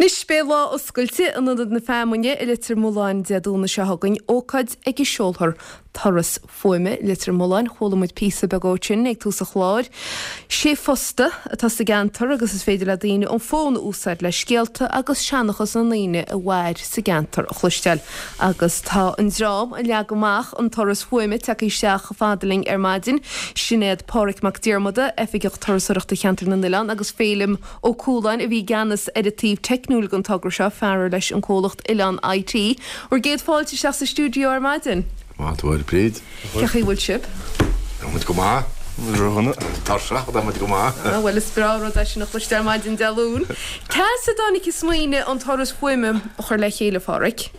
Anois, beidh lá oscailte in Ionad na Feamainne i Leitir Mealláin Dé Domhnaigh seo chugainn, ócáid ag a seolfar Turas Fuaime Leitir Mealláin. Chuala muid píosa beag ó sin ag tús an chláir. Sé phosta atá sa gceantar agus is féidir le daoine an fón a úsáid le scéalta agus seanchas na ndaoine a mhair sa gceantar a chloisteáil. Agus tá an dream a leag amach an turas fuaime tagtha isteach chomh fada linn ar maidin. Sin iad Páraic Mac Diarmada, Oifigeach Turasóireachta Cheantar na nOileán agus Féilim Ó Cualáin a bhí i gceannas ar an taobh teicniúil den togra seo, fear ar leis an comhlacht Oileán IT. Bhur gcéad fáilte isteach sa stiúideo ar maidin. Maith thú a Bhríd. Cén chaoi a bhfuil sibh? Tá muid go maith. Ródhona. Tuirseach, tá muid go maith. Ah, bhuel is breá an rud é sin a chloisteáil ar maidin Dé Luain. Cá as a dtáinig an smaoineamh an turas fuaime a chur le chéile, a Pháraic?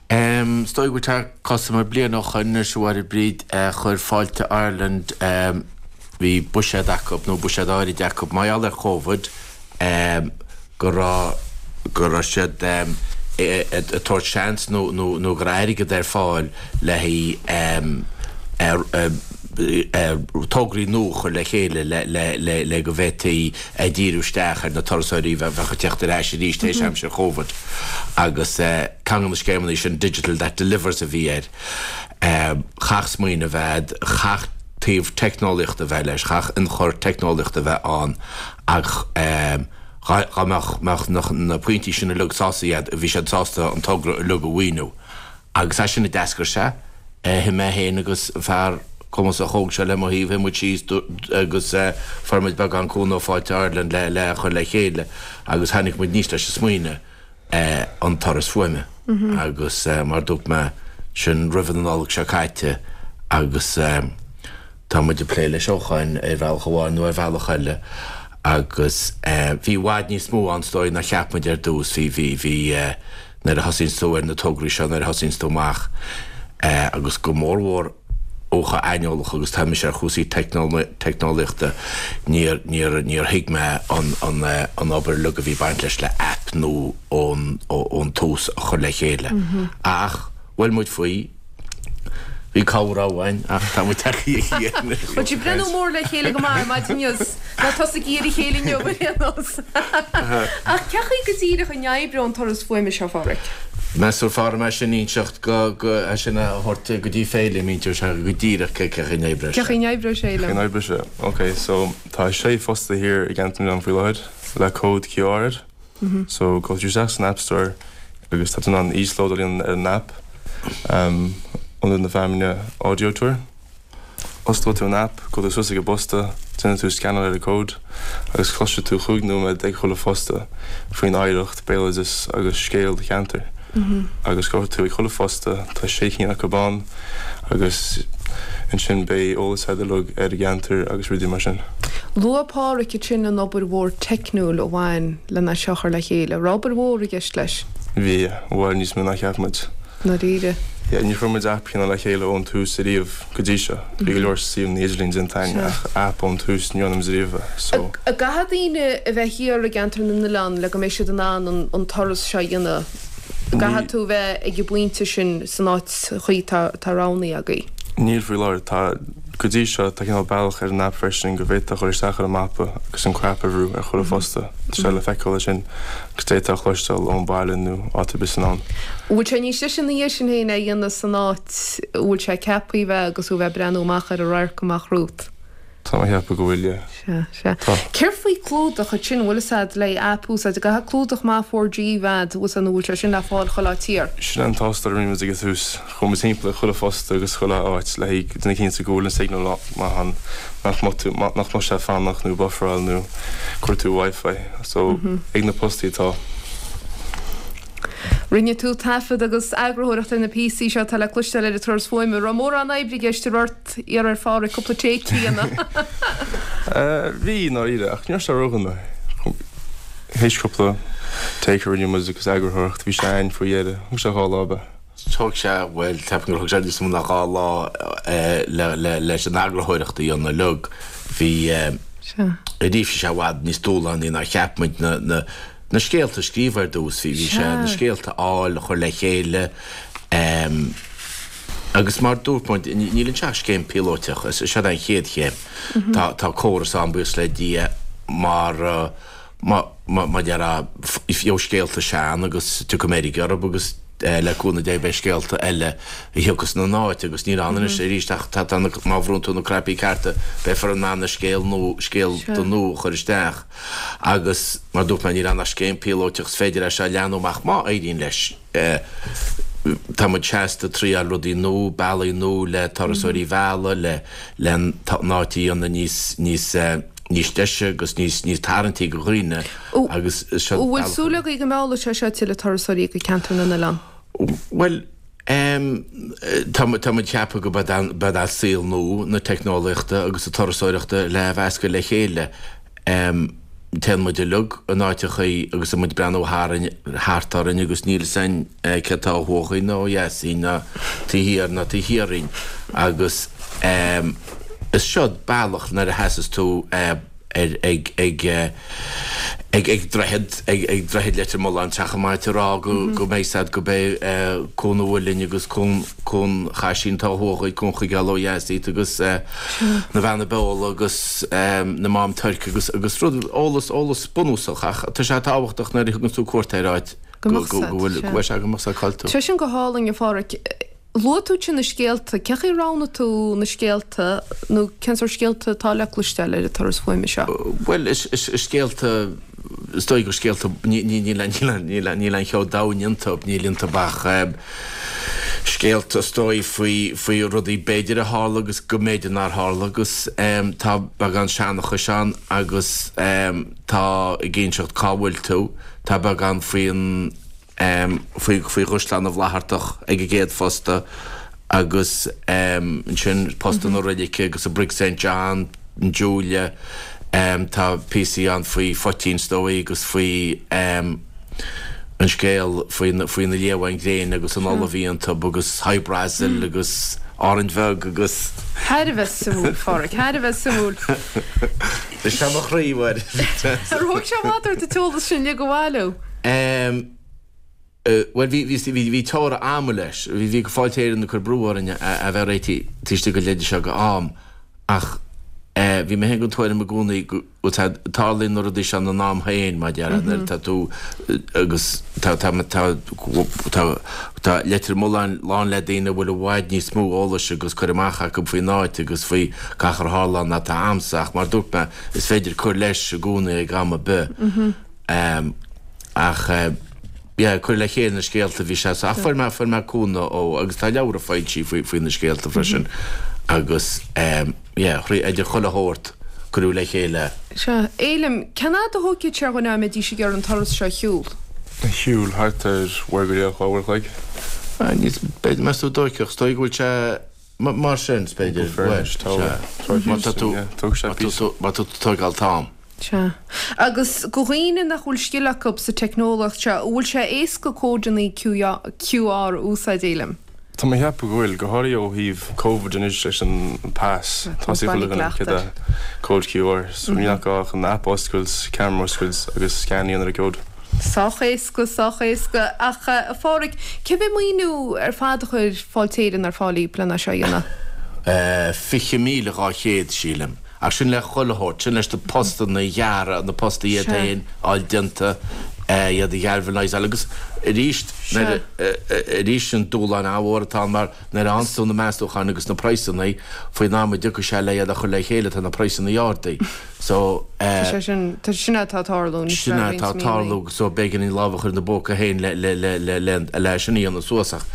Is dóigh go bhfuil sé cosamar bliain ó shoin anois, a Mháire Bríd, chuir Fáilte Ireland, bhí buiséad acu, nó buiséad áirid acu, mar gheall ar Chóvid, go raibh, go raibh siad ag tabhairt seans nó, nó, nó go raibh airgead ar fáil le haghaidh tograí nua a chur le chéile le, le, le, le go bhféadfaí díriú isteach ar na turasóirí a bheadh ag teacht ar ais arís tar éis aimsir Chóvid agus. Ceann de na scéimeanna sin, Digital That Delivers a bhí air. Chaithfeadh smaoineamh a bheith a'd, chaithfeadh taobh teicneolaíochta a bheith leis, chaithfeadh ionchur teicneolaíochta a bheith ann ach dhá mbeadh na pointí sin uilig sásta iad, bhí siad sásta an togra uilig a mhaoiniú. Agus as sin a d'eascair sé. Shuigh mé féin agus an fear cumasach óg seo le mo thaobh, shuigh muid síos agus fuair muid beagán cúnamh ó Fáilte Ireland le a chur le chéile agus tháinig muid aníos leis an smaoineamh. an turas fuaime agus mar dúirt mé, sin roimh an Nollaig seo caite agus tá muid ag plé leis ó shoin ar bhealach amháin nó ar bhealach eile agus bhí i bhfad níos mó ann is dóigh ná cheap muid ar dtús. Bhí, bhí, bhí nuair a thosaíonns tú ar na tograí seo, nuair a thosaíonns tú amach agus go mórmhór, ó chomh aineolach agus tá mise ar chúrsaí teicneolaíochta, níor, níor, níor thuig mé an, an, an obair uilig a bhí ag baint leis le aip nua ón, ón tús a chur le chéile. Ach bhuail muid faoi, bhí cabhair uainn ach tá muid tagtha anois. Bhfuil sibh ag breathnú mór le chéile go maith ar maidin inniu? Ná tosaigí ar a chéile inniu ar aon nós. Ach cén chaoi go díreach a n-oibreoidh an turas fuaime seo, a Pháraic? Meas tú ar fearr dom é sin a inseacht go, go, é sin a thabhairt go dtí Féilim, inseoidh sé go díreach cé chaoi a n-oibreoidh sé. Cén chaoi a n-oibreoidh sé, Féilim? Cén chaoi a n-oibreoidh sé? Ok, so tá sé phosta thiar i gCeantar na nOileán faoi láthair le cód QR air. So gabhfaidh tú isteach san App Store agus tá tú in ann íoslódáil a dhéanamh ar an app, Ionad na Feamainne Audio Tour. Osclóidh tú an aip, gabhfaidh tú suas ag an bposta, déanfaidh tú scannáil ar an gcód agus cloisfidh tú chúig nóiméad ag chuile phosta faoin oidhreacht, béaloideas agus scéal do cheantair. Agus gabhfaidh tú ag chuile phosta, tá sé cinn acu ann, agus ansin beidh eolas agat uilig ar an gceantar agus rudaí mar sin. Luaigh Páraic ansin an obair mhór teicniúil a bhain lena seo a chur le chéile. Raibh obair mhór i gceist leis? Bhí, i bhfad níos mó ná cheap muid. ndáiríre. Yeah, níor chuir muid aip cineál le chéile ón tús ariamh go dtí seo. Bhí go leor suíomhanna idirlín déanta againn ach aip ón tús ní dhearna muid ariamh é. So. An gcaithfidh daoine a bheith thiar i gCeantar na nOileán le go mbeidh siad in ann an turas seo a dhéanamh? An gcaithfidh tú a bheith ag an bpointe sin san áit chuí atá roghnaithe agaibh? Níl faoi láthair. Tá, go dtí seo, tá cineál bealach ar an aip freisin go bhféadfá a dhul isteach ar an mapa agus an crap a bhrú ar chuile phosta. Tá sé le feiceáil ansin. Agus d'fhéadfá a chloisteáil ón bhaile nó áit ar bith san domhan. Bhfuil sé níos deise ina dhiaidh sin féin é a dhéanamh san áit a bhfuil sé ceaptha a bheith agus thú a bheith ag breathnú amach ar an radharc amach romhat? Tá mé ag ceapadh go bhfuil, yeah. Sea, sea. Tá. Céard faoi clúdach ansin, bhfuil fhios a'd le aip a úsáid, an gcaithfidh clúdach maith 4G a bheith a'd, bhfuil fhios a'd nó bhfuil sé sin le fáil chuile áit thiar? Sin an tástáil a rinne muid ag an tús. Chuaigh muid timpeall ag chuile phosta agus chuile áit le haghaidh déanamh cinnte go bhfuil an signal maith ann, nach mbeadh tú, nach mbeadh sé ag fanacht nó bufferáil nó cuartú Wi-Fi. So, ag na postaí atá. Rinne tú taifead agus eagarthóireacht ar na píosaí seo atá le cloisteáil ar an turas fuaime. Raibh mórán oibre i gceist, an raibh ort iarraidh ar Pháraic cúpla take a dhéanamh? Bhí, i ndáiríre, ach ní raibh sé ródhona. Théis cúpla take a rinne muid agus eagarthóireacht, bhí sé againn faoi dheireadh. Thóg sé dhá lá, ab ea? Thóg sé, bhuel, ceapaim gur thóg sé níos mó ná dhá lá leis an eagarthóireacht a dhéanamh uilig. Bhí, arís, bhí sé i bhfad níos dúshlánaí ná cheap muid na, na, na scéalta a scríobh ar dtús. Bhí, bhí sé na scéalta a fháil, a chur le chéile agus mar dúirt muid, níl anseo ach scéim píolóiteach, is seo an chéad chéim. Tá, tá córas ann, buíochas le Dia, mar. Má mar a déarfá gheobhaidh scéalta sean agus tiocfaidh meirg orthu agus le cúnamh Dé beidh scéalta eile a thiocfas ina n-áit agus níl ann anois arís ach tá tá na má bhrúnn tú na cnaipí cearta beifear in ann na scéal nua scéalta nua a chur isteach agus mar dúirt mé níl ann ach scéim píolóiteach is féidir é seo a leathnú amach má éiríonn leis. Tá muid seasta ag triáil rudaí nua, bealaí nua le turasóirí a mhealladh, le le an áit a dhéanamh níos níos níos deise agus níos níos tarraingtí do dhaoine agus is seo An bhfuil súil agaibh go meallfaidh sé seo tuilleadh turasóirí go Ceantar na nOileán? Bhuel, tá tá muid ag ceapadh go mbeidh an saol nua na teicneolaíochta agus na turasóireachta le mheascadh le chéile. Téann muid uilig in áiteachaí agus tá muid ag breathnú tharainn, thart orainn agus níl fhios a'inn céard tá ó thuaidh dhínn ná ó dheas dhínn ná taobh thiar ná taobh thiar dhínn agus is seod bealach nuair a sheasas tú ar ag ag ag ag droichead ag ag droichead Leitir Mealláin teach an mait a rá go go mbeidh 's a'd go b'é Cuan an Mhuilinn agus Cuan Cuan Chaisín atá ó thuaidh dhuit, Cuan Chuigéal ó dheas díot agus na Beanna Beola agus na Mám Tuirc agus agus rud, eolas, eolas bunúsach ach tá sé tábhachtach nuair a thugann tú cuairt ar áit go go bhfuil, go bhfuil sé go mbeadh sé cá'il tú. Tá sin go hálainn, a Pháraic. Luaigh tú ansin na scéalta, cén chaoi a roghnaigh tú na scéalta nó cén sórt scéalta atá le cloisteáil ar an turas fuaime seo? Bhuel, is scéalta, is dóigh gur scéalta, níl aon cheo domhain iontu, níl iontu ach scéalta is dóigh faoi, faoi rudaí b'fhéidir a tharla agus go mb'fhéidir nár tharla agus tá beagán seanchais ann agus tá ag inseacht cá bhfuil tú, tá beagán faoin. faoi Chaisleán na bhFlaitheartach ag an gcéad phosta agus ansin posta na roilice agus an Brig St John, an Julia, tá píosaí ann faoi phoitín is dóigh agus faoi an scéal faoi na liamháin ghréine agus an ola a bhí iontu agus Hy Brasil agus Árainn Bheag agus. Thar a bheith suimiúil, a Pháraic, thar a bheith suimiúil. Is é mo chroí, a Mháire. Ar thóg sé i bhfad ort an t-eolas sin uilig a bhailiú? Bhuel, bhí, bhí, bhí, bhí teora ama leis. Bhí, bhí Fáilte Éireann ag cur brú orainn a bheith réitithe taobh istigh den leide seo go am ach bhí mé féin den tuairim i gcónaí go bhfuil sé, tarlaíonn na rudaí seo ina n-am féin, mar a déarfá, nuair atá tú agus tá, tá, tá, tá, tá Leitir Mealláin lán le daoine a bhfuil i bhfad níos mó eolais agus cur amach acu faoin áit agus faoi gach ar tharla ann ná atá a'msa ach mar a dúirt mé, is féidir cur leis i gcónaí ag am ar bith. Ach yeah, cur le chéile na scéalta bhí sé ach fuair mé, fuair mé cúnamh ó, agus tá leabhra foilsithe faoi, faoi na scéalta freisin agus yeah, idir chuile shórt cuireadh le chéile. Sea. Éilim, cén fhad a thógfaidh sé ar dhuine dá mbeidís ag iarraidh an turas seo a shiúl? A shiúl thart ar uair go leith, 2 uair a chloig. Níos, b'fhéidir, meas tú an dtóigfeadh, is dóigh go bhfuil sé, Mar sin, is féidir, bhuel, sea. Má tá tú, má tá tú ag tógáil t-am. Sea. Agus do dhaoine nach bhfuil scil acu sa teicneolaíocht seo, an bhfuil sé éasca códanna QR a úsáid, Éilim? Tá mé ag ceapadh go bhfuil, go háirithe ó thaobh Covid anois leis an pas, tá sé chuile dhuine ag cód QR, so níl ach gá ach an app a oscailt, camera a oscailt agus scan a dhéanamh ar an gcód. Sách éasca, sách éasca. Ach, a Pháraic, cé mhéad maoiniú ar fad a chuir Fáilte Éireann ar fáil daoibh lena seo a dhéanamh? 20,200, sílim. Ach sin le chuile shórt, sin leis na postanna a ghearradh, na postaí iad féin a fháil déanta, iad a ghalvanizáil agus arís, nuair a, arís an dúshlán an-mhór atá ann mar nuair a fhaigheanns tú na meastúcháin agus na praghsanna faoin am a dtiocfaidh sé le iad a chur le chéile tá na praghsanna ardaithe. So, eh. Tá sé sin, tá sin atá ag tarlú anois Sin le roinnt atá ag tarlú míonna. so b'éigean an lámh a chur ina bpóca féin le, le, le, le, le, le sin a dhéanamh suas ach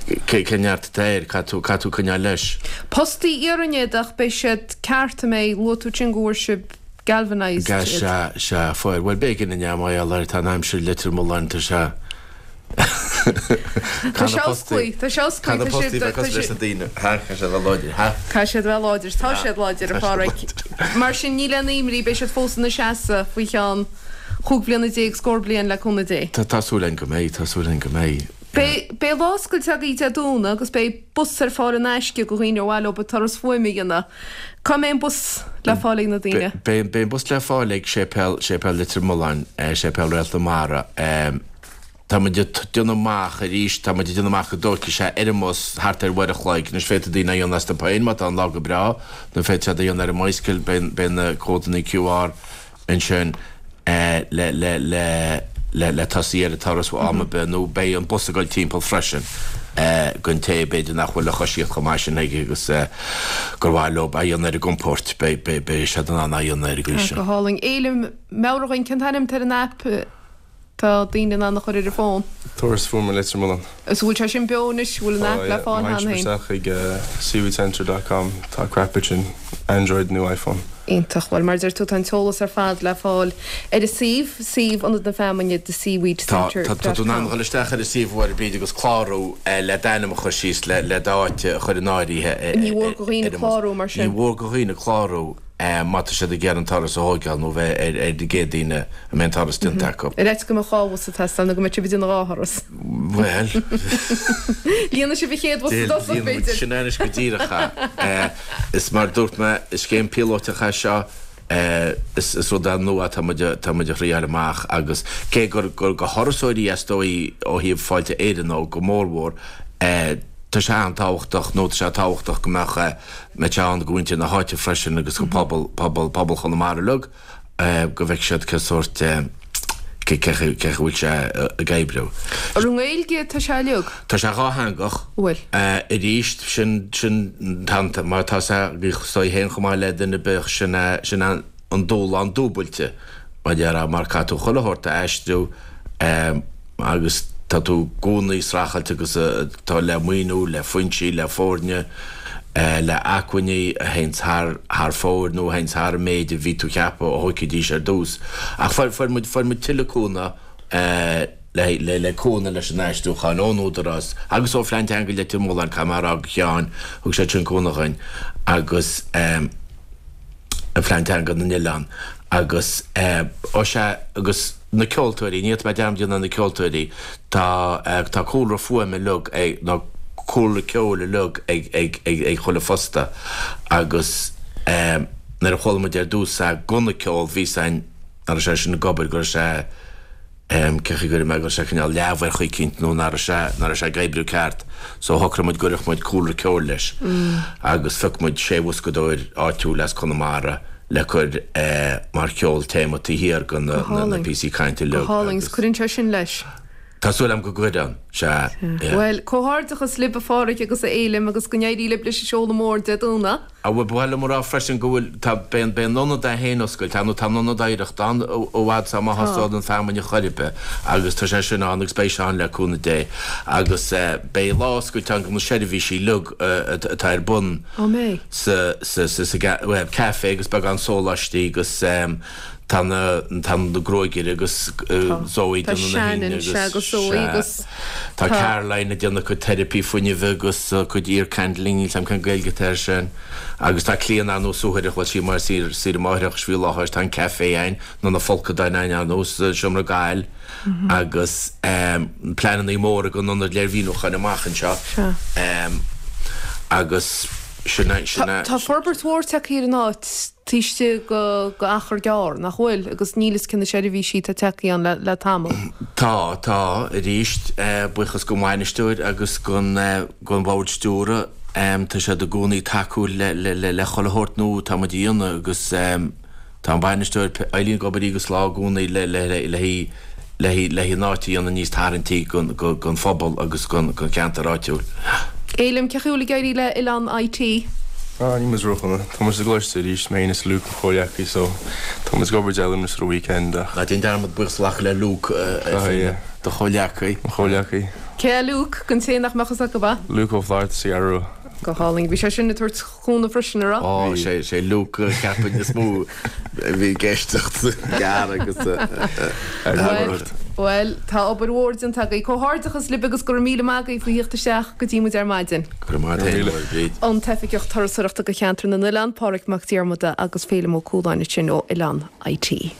cé, cén neart atá air, caithfidh tú, caithfidh tú coinneáil leis. Postaí iarainn iad ach beidh siad ceart an mbeidh, luaigh tú ansin go bhfuair sibh galvanised iad. Sea, sea, fuair. Bhuel b'éigean inné mar gheall air, tá an aimsir i Leitir Mealláin, tá sé. Tá sé osclaí, tá sé osclaí, tá siad, tá siad, Caithfidh siad a bheith láidir, ha? Caithfidh siad a bheith láidir, tá siad láidir, a Pháraic. Mar sin, níl aon imní, beidh siad fós ina seasamh faoi cheann chúig bliana déag, scór bliain, le cúnamh Dé. Tá súil againn go mbeidh, tá súil againn go mbeidh. Beidh, beidh lá oscailte agaibh Dé Domhnaigh agus beidh bus ar fáil in aisce do dhaoine ar mhaith leo an turas fuaime a dhéanamh. Cá mbeidh an bus le fáil ag na daoine? Beidh, beidh an bus le fáil ag Séipéal, Séipéal Leitir Mealláin, Séipéal Réalt na Mara. Tá muid ag déanamh amach arís, tá muid ag déanamh amach go dtógfaidh sé ar an mbus thart ar uair a chloig. Anois féadfaidh daoine é a dhéanamh astu féin má tá an lá go breá, nó féadfaidh siad é a dhéanamh ar an mbicycle, beidh na códanna QR ansin. Le le le le le tosaí ar an turas am ar bith nó beidh an bus ag dul timpeall freisin don té b'fhéidir nach bhfuil an choisíocht chomh maith sin aige agus gur mhaith leo a dhéanamh ar a gcompóirt beidh beidh beidh siad in ann a dhéanamh ar an gcaoi sin. Go hálainn. Éilim, meabhraigh dhúinn cén t-ainm atá ar an aip atá daoine in ann a chur ar a bhfón? Turas Fuaime Leitir Mealláin. Is bhfuil sé sin beo anois? Bhfuil an aip le fáil cheana féin? Tá, má théann sibh isteach chuig seaweedcentre dot com tá crap ansin, Android nó iPhone. Iontach. Bhuel, mar a deir tú, tá an t-eolas ar fad le fáil ar an suíomh, suíomh Ionad na Feamainne, The Seaweed Tá, Centre tá, tá dot tú in ann com. dhul isteach ar an suíomh a Mháire Bríd agus clárú le d'ainm a chur síos, le, le d'áit a chur in áirithe Ní mhór do dhaoine ar an mbus. clárú mar Ní sin? mhór do dhaoine clárú. má tá siad ag iarraidh an turas a thóigeáil nó bheith ar ar na gcéad daoine a mbeidh an turas déanta acu. Ar fhaitíos go mbeadh 2 bhus ag teastáil nó go mbeidh sibh ag déanamh 2 thuras. Bhuel. Líonfaidh sibh an chéad bhus i dtosach, Líonfaidh muid b'fhéidir. sin anois go díreach é. Is mar a dúirt mé, is scéim píolótach é seo, is is rud é nua atá muid atá muid a thriáil amach agus cé gur gur do thurasóirí is dóigh ó thaobh Fáilte Éireann ó go mórmhór, tá sé an-tábhachtach nó tá sé tábhachtach go mbeadh mbeadh sé ann do mhuintir na háite freisin agus do phobal, pobal, pobal Chonamara uilig, go bhfeicfidh siad cé sórt, cé, cé chaoi, cé chaoi bhfuil sé ag oibriú. Ar an nGaeilge tá sé uilig? Tá sé dhátheangach. Bhfuil. Arís, sin, sin, tá, mar tá sé, bhí sé féin chomh maith le duine ar bith, sin é, sin é an dúshlán dúbailte, mar a déarfá, mar caithfidh tú chuile shórt a aistriú, agus tá tú i gcónaí ag streachailt agus tá le maoiniú, le foinsí, le foirne, le acmhainní a théanns thar thar fóir nó a théanns thar an méid a bhí tú ag ceapadh a thóigfidís ar dtús. Ach fuair fuair muid fuair muid tuilleadh cúnamh le le le cúnamh leis an aistriúchán ón Údarás agus ó Phlean Teanga Leitir Mealláin, caithfidh mé a rá go Sheáin, thug siad sin cúnamh dhuinn agus. Phlean Teanga na nOileán agus ó sea agus na ceoltóirí, ní fhéadfaidh mé dearmad a dhéanamh ar na ceoltóirí, tá tá cúlra fuaime uilig ag nó cúlra ceoil uilig ag ag ag ag chuile fostaí agus nuair a chuala muid ar dtús é gan an ceol bhí a fhios againn nach raibh sé sin ag obair go raibh sé cén chaoi a gcuirfidh mé go raibh sé cineál leamh ar chaoi eicínt nó nach raibh sé, nach raibh sé ag oibriú ceart so shocraigh muid go gcuirfeadh muid cúlra ceoil leis agus phioc muid sé bhoscadóir áitiúil as Conamara le cur mar cheol téama taobh thiar de na na píosaí cainte uilig. Go hálainn, 's cuireann sé sin leis. Tá súil agam go gcuireann, sea, yeah. Bhuel, comhghairdeachas libh a Pháraic agus a Fhéilim agus go n-éirí libh leis an seoladh mór Dé Domhnaigh. Á bhuel, ba mhaith liom a rá freisin go bhfuil, tá, beidh an, beidh an Ionad é féin oscailte, nó tá an Ionad Oidhreachta ann i bhfad is má thosóidh an feamainn a chor ar bith agus tá sé sin ann agus beidh sé ann le cúnamh Dé agus beidh lá oscailte ann do na seirbhísí uilig atá ar bun Á mbeidh? sa, sa, sa, sa, bhuel, caife agus beagán sóláistí agus Tá na tá na gruaigeire agus Zoe Tá déanamh na Shannon, hingne sea, agus agus Zoe sea. agus Tá tá. Caroline ag déanamh cuid teiripí fuinnimh agus cuid ear candling, níl 's a'm cén Gaeilge atá air sin. Agus tá Clíona ar ndóigh suathaireach, bhuel sí mar saoire saoire máithreachais faoi láthair, tá an café a'inn, nó na folcadáin a'inn ar ndóigh sa seomra gail agus pleanannaí móra don ionad léirmhíniúcháin amach anseo. Sea. Agus sin é sin é. Tá forbairt mhór tagtha ar an áit. taobh istigh de achar gearr, nach bhfuil? Agus níl 'fhios cé na seirbhísí atá tagtha ann le tamall. Tá, tá, arís, buíochas don bhainisteoir agus don bhord stiúrtha, tá siad i gcónaí tacúil le chuile shórt nua atá muid a dhéanamh agus tá an bainisteoir Eileen ag obair oíche agus lá i gcónaí le le an áit a dhéanamh níos tarraingtí don phobal agus don cheantar áitiúil. Fhéilim, cén chaoi a bhfuil ag éirí le Oileán IT? Ah, níl muid ródhona. Tá muid sa gcoláiste arís, mé féin is Luke, mo chomhghleacaí, so tá muid ag obair Dé Luain is ar an weekend ach. Ná déan dearmad buíochas a ghlacadh le Luke, do chomhghleacaí. Mo chomhghleacaí. Cé é Luke, don té nach mbeadh fhios acu? Luke Ó Flatharta sa Cheathrú Rua. Go hálainn. Bhí sé sin ag tabhairt cúnamh freisin, an raibh? Ó, sé, sé Luke a cheapfainn is mó a bhí ag éisteacht gearr agus a. Bhuel, tá obair mhór déanta agaibh. Comhghairdeachas libh agus go raibh míle maith agaibh faoi thíocht isteach go dtí muid ar maidin. Go raibh maith agat, a Bhríd. An tOifigeach Turasóireachta do Cheantar na nOileán, Páraic Mac Diarmada agus Féilim Ó Cualáin ansin ó Oileán IT.